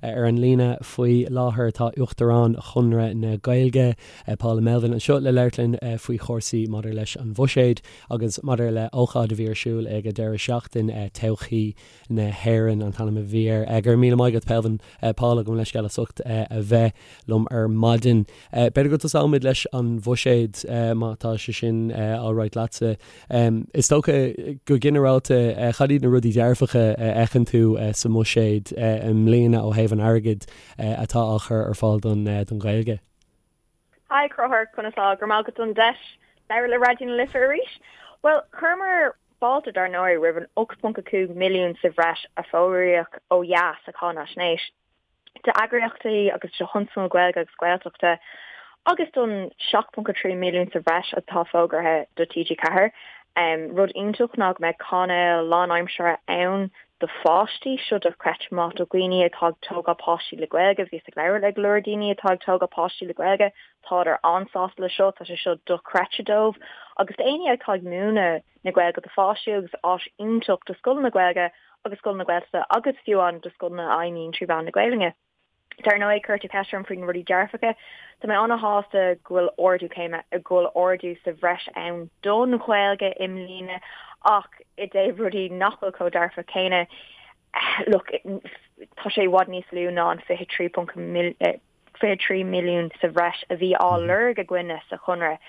Ar an líne faoi láthair tá Uachtarán Chonradh na Gaeilge, Paula Melvin, anseo le labhairt linn faoi chúrsaí maidir leis an bhuiséad agus maidir le ócáid a bhí ar siúl ag an deireadh seachtaine, Todhchaí na hÉireann an t-ainm a bhí air. Go raibh míle maith agat, Pelvin, Paula, gabh mo leithscéal as ucht a bheith liom ar maidin. B'fhéidir go dtosóimid leis an bhuiséad má tá sé sin alright leatsa. Is dócha, go ginearálta, cad iad na rudaí dearfacha a fheiceann tú sa mbuiséad i mbliana ó thaobh an airgid atá á chur ar fáil don Ghaeilge? Hi, Conchúr, conas tá? Go raibh maith agat don deis labhairt le Raidió na Life arís. Bhuel, chuireamar fáilte dar ndóigh roimh an 8.5 milliún sa bhreis a fógraíodh ó dheas sa cháinaisnéis. d'eagraíochtaí agus do thionscnaimh Gaeilge agus Gaeltachta agus don 7.3 milliún sa bhreis atá fógartha do TG4. Rud iontach ná go mbeidh cainéal lánaimseartha ann do pháistí, seo dochreidte maith do dhaoine atá ag tógáil páistí le Gaeilge. Bhíos ag labhairt le go leor daoine atá ag tógáil páistí le Gaeilge, tádar an-sásta le seo, tá sé seo dochreidte dóibh. Agus d'éinne atá ag múineadh na Gaeilge do pháistí agus áis iontach do scoileanna Gaeilge agus scoileanna Gaeltachta agus fiú amháin do scoileanna a fheidhmíonn trí mheán na Gaelainne. Dar ndóigh, chuir tú ceist orm faoi na rudaí dearfacha. Tá mé an-shásta go bhfuil ardú céime, go bhfuil ardú sa bhreis ann don Ghaeilge i mbliana ach i dtaobh rudaí nach bhfuil chomh dearfach céanna, look, tá sé i bhfad níos lú ná an 23. 23 milliún sa bhreis a bhí á lorg againne sa Chonradh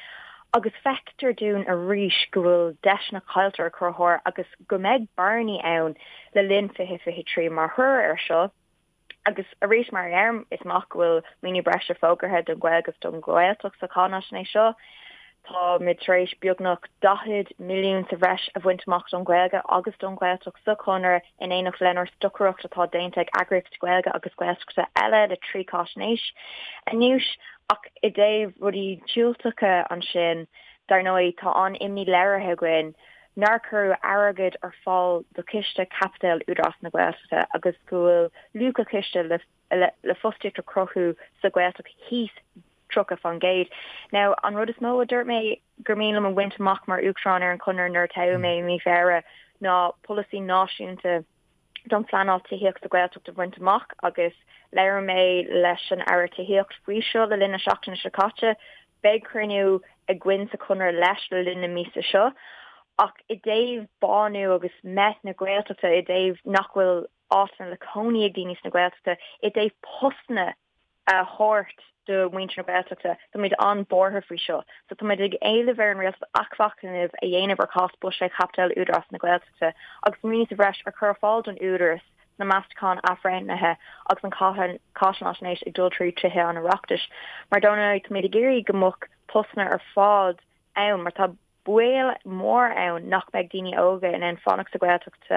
agus feictear dúinn arís go bhfuil deiseanna caillte a Chonchúir agus go mbeidh bearnaí ann le linn 2023 mar thoradh air seo. Agus arís mar a deirim, is maith go bhfuil maoiniú breise fógartha don Ghaeilge agus don Ghaeltacht sa cháinaisnéis seo. Táimid tar éis beagnach 40 milliún sa bhreis a bhaint amach don Ghaeilge agus don Ghaeltacht sa Chonradh in éineacht lenár stocaireacht atá déanta ag eagraíochtaí Gaeilge agus Gaeltachta eile le 3 cháisnéis anuas. Ach i dtaobh rudaí diúltacha ansin, dar ndóigh, tá an-imní léirithe againn nár cuireadh airgead ar fáil do Chiste Caipitil Údarás na Gaeltachta agus go bhfuil luach an chiste le fostaíocht a chruthú sa Ghaeltacht thíos 30%. Now, an rud is mó a dúirt mé gur mian liom a bhaint amach mar Uachtarán ar an Chonradh nuair a toghadh mé i mí Feabhra ná polasaí náisiúnta don phleanáil tithíochta sa Ghaeltacht a bhaint amach agus labhair mé leis an Aire Tithíochta faoi seo le linn na seachtaine seo caite. Beidh cruinniú againn sa Chonradh leis le linn na míosa seo. Ach i dtaobh bánú agus meath na Gaeltachta, i dtaobh nach bhfuil áiteanna le cónaí ag daoine sna Gaeltachta, i dtaobh postanna a thabhairt do mhuintir na Gaeltachta. Táimid an-bhuartha faoi seo. So táimid ag éileamh ar an Rialtas athmhachnamh a dhéanamh ar chás buiséad chaipitil Údarás na Gaeltachta agus maoiniú sa bhreis a chur ar fáil don Údarás sna meastacháin athbhreithnithe agus an cháinaisnéis ag dul trí Tithe an Oireachtais. Mar dar ndóigh táimid ag iarraidh go mbeadh postanna ar fad ann mar tá baol mór ann nach mbeidh daoine óga in ann fanacht sa Ghaeltacht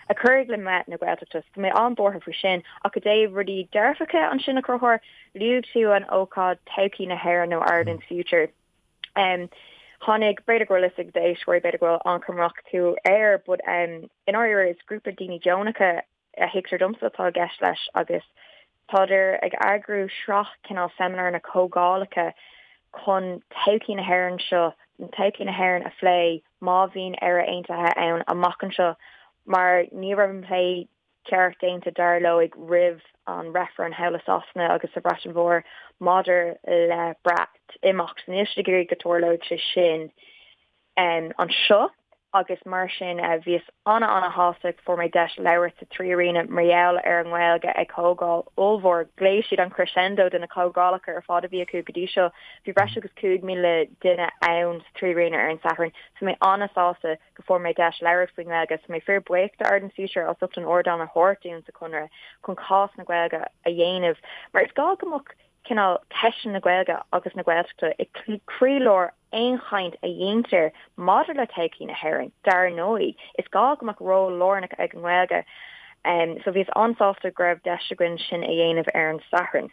a chuirfidh le meath na Gaeltachta. So tá mé an-bhuartha faoi sin. Ach i dtaobh rudaí dearfacha ansin a Chonchúir, luaigh tú an ócáid Todhchaí na hÉireann nó Ireland's Future. Um, tháinig b'fhéidir go bhfuil fhios ag d'éisteoirí, b'fhéidir go bhfuil an-chuma acu air, but um, i ndáiríre is grúpa daoine deonacha a thuigtear domsa atá i gceist leis agus tádar ag eagrú sraith cineál seimineáranna comhdhálacha chun todhchaí na hÉireann seo, todhchaí na hÉireann a phlé má bhíonn Éire Aontaithe ann amach anseo mar ní raibh an plé ceart déanta dar leo roimh an reifreann thall i Sasana agus sa Bhreatain Mhór maidir le Breatimeacht. Níl siad ag iarraidh go dtarlódh sé sin. anseo agus mar sin bhíos ana-ana-shásta go fuair mé deis labhairt sa 3Arena mar gheall ar an nGaeilge ag comhdháil ollmhór. Ghlaoigh siad an crescendo de na comhdhálacha ar fad a bhí acu go dtí seo. Bhí breis agus 5,000 duine ann sa 3Arena ar an Satharn. So mé ana-sásta go fuair mé deis labhairt faoin nGaeilge. So mé fíor buíoch do Ireland's Future as ucht an ardán a thabhairt dúinn sa Chonradh chun cás na Gaeilge a dhéanamh mar is gá go mbeadh cineál ceisteanna na Gaeilge agus na Gaeltachta i gcroílár aon chaint a dhéantar maidir le todhchaí na hÉireann, dar ndóigh. Is gá go mbeadh ról lárnach ag an nGaeilge. So bhíos an-sásta go raibh deis againn sin a dhéanamh ar an Satharn.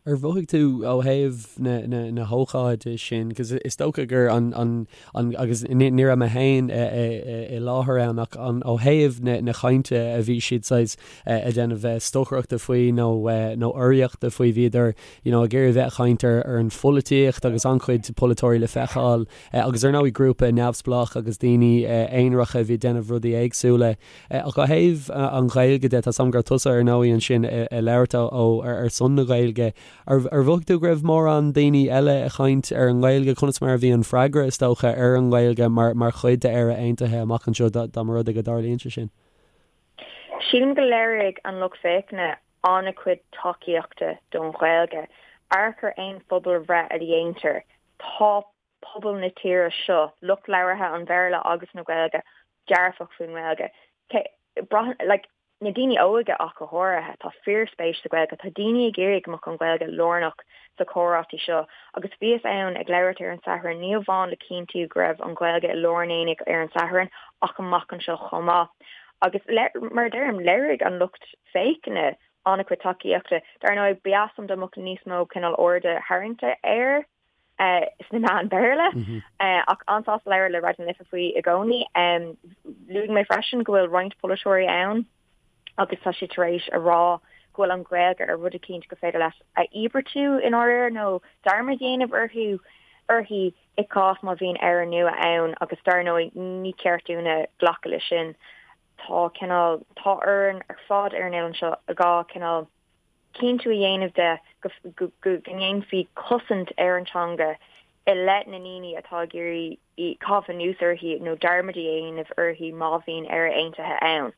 Ar mhothaigh tú ó thaobh na, na, na hócáide sin, cos is dócha gur an, an, an, agus ní, ní raibh mé féin i, i, i láthair ann ach an, ó thaobh na, na cainte a bhí siad saghas ag déanamh stocaireachta faoi nó, nó urraíochta faoi, bhíodar, you know, ag iarraidh a bheith ag caint ar, ar an pholaitíocht agus an-chuid polaiteoirí le feiceáil agus ar ndóigh grúpa neamhspleách agus daoine aonaracha a bhí ag déanamh rudaí éagsúla. Ach ó thaobh an Ghaeilge de, tá 's agam go raibh tusa ar ndóigh ansin ag labhairt ó ar son na Gaeilge. Ar mhothaigh tú go raibh mórán daoine eile ag caint ar an nGaeilge? Conas mar a bhí an freagra, is dócha, ar an nGaeilge mar mar chuid d'Éire Aontaithe amach anseo dá mba rud é go dtarlaíonn sé sin? Sílim go léirigh an lucht féachana an-chuid tacaíochta don Ghaeilge. Amharc ar aon phobalbhreith a dhéantar, tá pobal na tíre seo, lucht labhartha an Bhéarla agus na Gaeilge, dearfach faoin nGaeilge. Braitheann, like, na daoine óga ach go háirithe, tá fíorspéis sa Ghaeilge, tá daoine ag iarraidh go mbeadh an Ghaeilge lárnach sa chomhráití seo agus bhíos ann ag labhairt ar an Satharn, ní amháin le cinntiú go raibh an Ghaeilge i lár an aonaigh ar an Satharn ach amach anseo chomh maith. Agus mar a deirim, léirigh an lucht féachana an-chuid tacaíochta. Dar ndóigh, ba dheas liom dá mbeadh níos mó cineál airde tharraingte air sna meáin Bhéarla, ach an-sásta labhairt le Raidió na Life faoi i gcónaí. Luaigh mé freisin go bhfuil roinnt polaiteoirí ann agus tá siad tar éis a rá go bhfuil an Ghaeilge ar rud eicínt gur féidir leat a íobartú i ndáiríre nó dearmad a dhéanamh orthu, uirthi i gcás má bhíonn Éire nua ann agus dar ndóigh ní ceart dúinne glacadh leis sin. Tá cineál, tá orainn ar fad ar an oileán seo dhá cineál cinntiú a dhéanamh de go go ndéanfaí cosaint ar an teanga i leith na ndaoine atá ag iarraidh caitheamh anuas uirthi nó dearmad a dhéanamh uirthi má bhíonn Éire Aontaithe ann.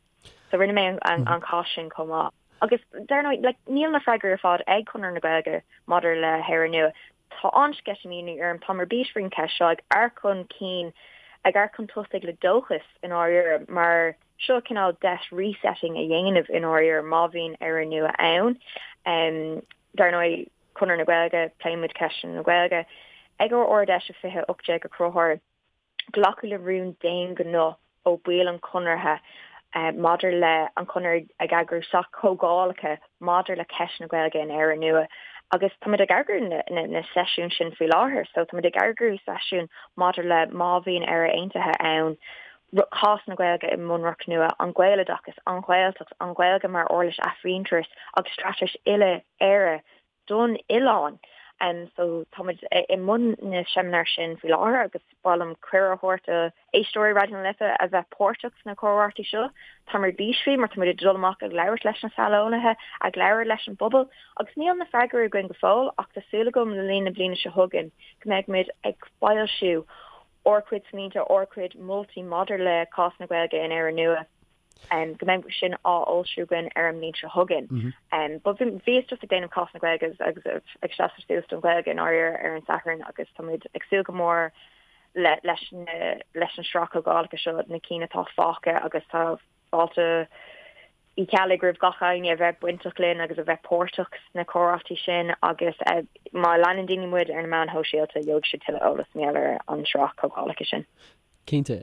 So rinne mé an cás sin chomh maith. Agus dar ndóigh, like, níl na freagraí ar fad ag Conradh na Gaeilge maidir le hÉire Nua. Tá an-sceitimíní orm, táim ar bís faoin cheist seo, ag amharc chun cinn, ag amharc chun tosaigh le dóchas i ndáiríre, mar seo cineál deis resetting a dhéanamh i ndáiríre má bhíonn Éire Nua ann. Dar ndóigh, Conradh na Gaeilge, pléann muid ceisteanna na Gaeilge. Ag ár Ard-Fheis i 2018 a Chonchúir, Glacadh le rún d'aon ghnó ó bhaill an Chonartha maidir le an Conradh ag eagrú sraith comhdhálacha maidir le ceist na Gaeilge in Éire Nua agus táimid ag eagrú na seisiún sin faoi láthair. So táimid ag eagrú seisiún maidir le má bhíonn Éire Aontaithe ann, cás na Gaeilge i mbunreacht nua, an Gaeloideachas, an Ghaeltacht, an Ghaeilge mar uirlis athmhuintearais agus straitéis uile-Éire don oileán. So táimid i mbun na seimineár sin faoi láthair agus ba mhaith liom cuireadh a thabhairt do éisteoirí Raidió na Life a bheith páirteach sna comhráití seo. Táim ar bís faoi mar táimid ag dul amach ag labhairt leis na saineolaithe, ag labhairt leis an bpobal agus níl na freagraí againn go fóill ach tá súil agam le linn na bliana seo chugainn go mbeidh muid ag foilsiú ár gcuid smaointe, ár gcuid moltaí maidir le cás na Gaeilge in Éire Nua. go mbeidh sin á fhoilsiú againn ar an mbliain seo chugainn. But bhíos just ag déanamh cás na Gaeilge agus ag seasamh suas don Ghaeilge i ndáiríre ar an Satharn agus táimid ag súil go mór le leis na leis an sraith comhdhálacha seo, na cinn atá fágtha agus tá fáilte Uí Cheallaigh roimh gach éinne a bheith bainteach linn agus a bheith páirteach sna comhráití sin agus má leanann daoine muid ar na meáin shóisialta gheobhaidh siad tuilleadh eolas mar gheall ar an sraith comhdhálacha sin. Cinnte.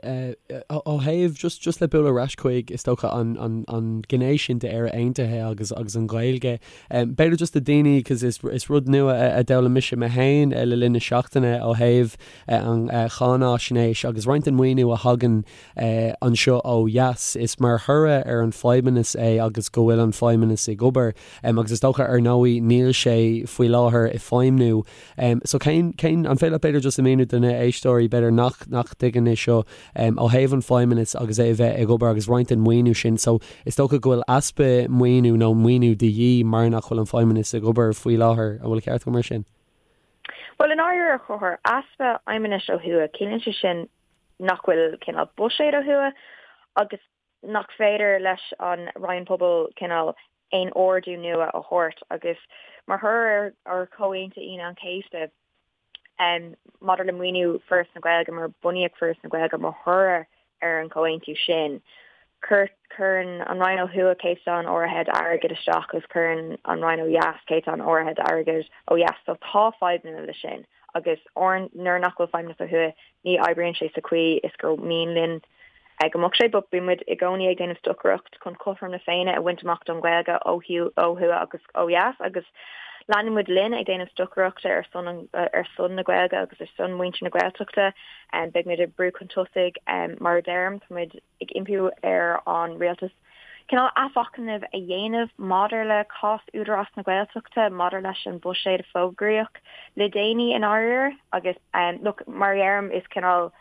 Ó thaobh, just, just le bualadh ar ais chuig, is dócha, an, an, an gné sin d'Éire Aontaithe agus, agus an Ghaeilge, b'fhéidir just do daoine, cos is, is rud nua a, a d'fhoghlaim mise mé féin le linn na seachtaine ó thaobh an cháináisnéis agus roinnt den maoiniú a thagann anseo ó dheas, is mar thoradh ar an Feidhmeannas é agus go bhfuil an Feidhmeannas ag obair. Agus is dócha, ar ndóigh, níl sé faoi láthair ag feidhmniú. So cén, cén, an féidir leat b'fhéidir just a mhíniú do na héisteoirí b'fhéidir nach, nach dtuigeann é seo ó thaobh an Feidhmeannas agus é a bheith ag obair agus roinnt den maoiniú sin. So is dócha go bhfuil easpa maoiniú nó maoiniú de dhíth mar nach bhfuil an Feidhmeannas ag obair faoi láthair. An bhfuil ceart agam mar sin? Bhuel, i ndáiríre, a Chonchúir, easpa Feidhmeannais ó thuaidh, ciallaíonn sé sin nach bhfuil cineál buiséad ó thuaidh agus nach féidir leis an Roinn Pobal cineál aon ordú nua a thabhairt agus mar thoradh ar Chomhaontú Aoine an Chéasta maidir le maoiniú Foras na Gaeilge, mar bunaíodh Foras na Gaeilge mar thoradh ar an chomhaontú sin, cuireann an Roinn ó thuaidh céatadán áirithe d'airgead isteach agus cuireann an Roinn ó dheas céatadán áirithe d'airgead ó dheas. So tá fadhbanna leis sin agus nuair nach bhfuil feidhmeannas ó thuaidh ní oibríonn sé sa chaoi is gur mian linn go mbeadh sé, but bíonn muid i gcónaí ag déanamh stocaireacht chun cothrom na Féinne a bhaint amach don Ghaeilge ó thuaidh agus ó dheas agus. Leanfaidh muid linn ag déanamh stocaireachta ar son an, ar son na Gaeilge agus ar son muintir na Gaeltachta. Beidh muid ag brú chun tosaigh, mar a deirim, tá muid ag impiú ar an rialtas cineál athmhachnamh a dhéanamh maidir le cás Údarás na Gaeltachta, maidir leis an bhuiséad a fógraíodh le déanaí i ndáiríre. Agus look, mar a dheirim, is cineál,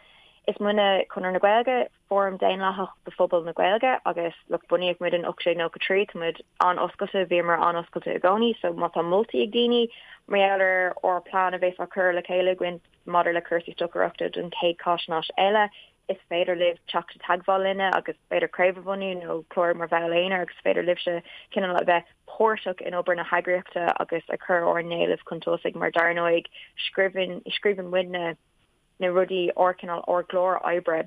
is muidne Conradh na Gaeilge, fóram daonlathach do phobal na Gaeilge agus look, bunaíodh muid in 1893, tá muid an-oscailte, bhíomar an-oscailte i gcónaí, so má tá moltaí ag daoine mar gheall ar ár plean a bheas á cur le chéile againn maidir le cúrsaí stocaireachta don chéad cháisnéis eile, is féidir libh teacht i dteagmháil linne agus b'fhéidir craobh a bhunú nó clárú mar bhall aonair agus is féidir libhse cineál a bheith páirteach in obair na heagraíochta agus ag cur ár n-éilimh chun tosaigh mar dar ndóigh scríobhann scríobhann muidne na rudaí ár cineál ár gclár oibre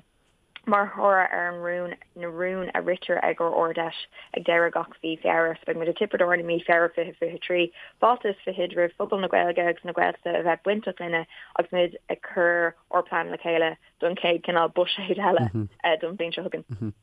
mar thoradh ar an rún na rúin a ritear ag ár Ard-Fheis ag deireadh gach mhí Feabhra. So beidh muid i dTiobraid Árann i mí Feabhra 2023. Fáilte is fichead roimh phobal na Gaeilge agus na Gaeltachta a bheith bainteach linne agus muid ag cur ár bplean le chéile don chéad cineál buiséad eile don bhliain seo chugainn.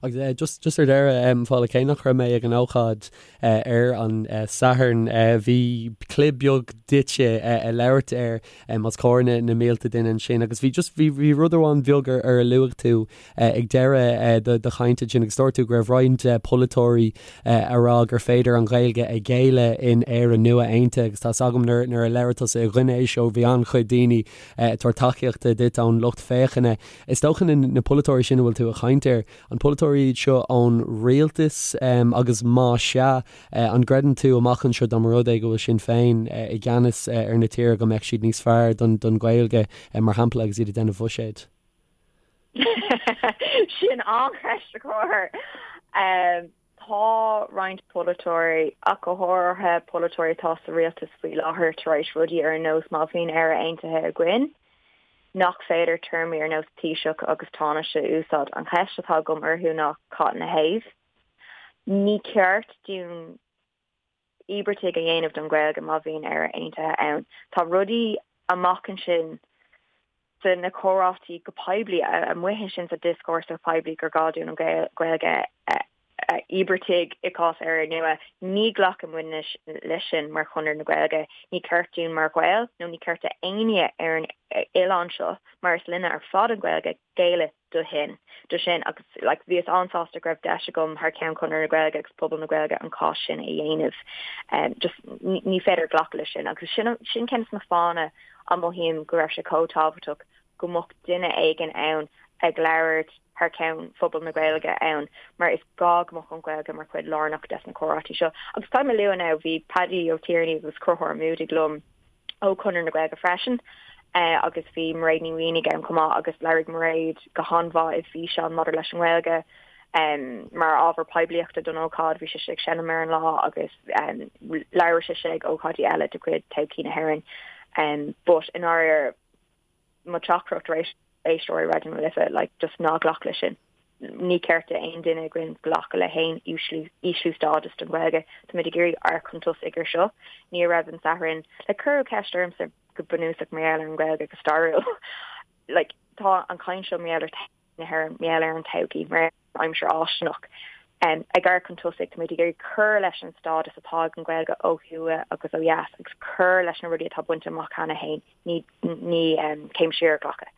Agus just just ar deireadh, Paula, cé nach raibh mé ag an ócáid ar an Satharn, bhí clib beag duitse ag labhairt air os comhair na na mílte duine ansin agus bhí just bhí bhí rud amháin beag ar ar a luaigh tú ag deireadh do do chainte ansin agus dúirt tú go raibh roinnt polaiteoirí a rá gur féidir an Ghaeilge a ghéilleadh in Éire nua aontaithe agus tá's agam nuair nuair a labhair tusa i gcoinne é seo bhí an-chuid daoine ag tabhairt tacaíochta duit ón lucht féachana. Is dócha na polaiteoirí sin a bhfuil tú ag caint air, an polaiteoirí iad seo ón rialtas agus má sea, an gcreideann tú amach anseo dá mba rud é go bhfuil Sinn Féin i gceannas ar na tíre go mbeadh siad níos fearr don Ghaeilge mar shampla agus iad ag déanamh bhuiséid? Sin an-cheist a Chonchúir. Tá roinnt polaiteoirí, ach go háirithe polaiteoirí atá sa rialtas faoi láthair, tar éis rudaí ar nós má bhíonn Éire Aontaithe againn, nach féidir téarmaí ar nós Taoiseach agus Tánaiste a úsáid. An cheist atá agam orthu ná cad ina thaobh? Ní ceart dúinn íobartaigh a dhéanamh don Ghaeilge má bhíonn Éire Aontaithe ann. Tá rudaí amach ansin sa na comhráití go poiblí, amuigh ansin sa dioscúrsa poiblí gur gá dúinn an Ghaeilge a íobartaigh i gcás Éire Nua. Ní ghlacann muidne leis sin mar Chonradh na Gaeilge. Ní ceart dúinn mar Ghaeil nó ní ceart d'éinne ar an oileán seo, mar is linne ar fad an Ghaeilge, géilleadh do shin, do sin agus like bhíos an-sásta go raibh deis agam thar ceann Chonradh na Gaeilge agus pobal na Gaeilge an cás sin a dhéanamh. Um, just ní féidir glacadh leis sin agus sin, sin ceann de na fáthanna a mothaím go raibh sé chomh tábhachtach go mbeadh duine éigin ann ag labhairt thar ceann phobal na Gaeilge ann mar is gá go mbeadh an Ghaeilge mar chuid lárnach des na comhráití seo. Agus caithfidh mé a lua now, bhí Paddy Ó Tiarnaigh agus Conchúr Ó Muadaigh liom ó Chonradh na Gaeilge freisin agus bhí Mairéad Ní Mhaonaigh ann chomh maith agus labhair Mairéad go han-mhaith i bhfíseán maidir leis an nGaeilge mar ábhar poiblíochta don ócáid. Bhí sise ag seinm ar an lá agus labhair sise ag ócáidí eile de chuid Todhchaí na hÉireann. But i ndáiríre, mo theachtaireacht d'éisteoirí Raidió na Life, like, just ná glac leis sin. Ní ceart d'aon duine againn glacadh le haon ísliú stádas don Ghaeilge. Táimid ag iarraidh amharc chun tosaigh ar seo. Ní raibh an Satharn, like, cuireadh ceist ormsa go bunúsach mar gheall ar an Ghaeilge go stairiúil. Like, tá an chaint seo mar gheall ar na hÉireann, mar gheall ar an todhchaí, mar aimsir fháistineach. Ag amharc chun tosaigh, táimid ag iarraidh cur leis an stádas atá ag an Ghaeilge ó thuaidh agus ó dheas agus cur leis na rudaí atá bainte amach cheana féin, ní céim siar a ghlacadh.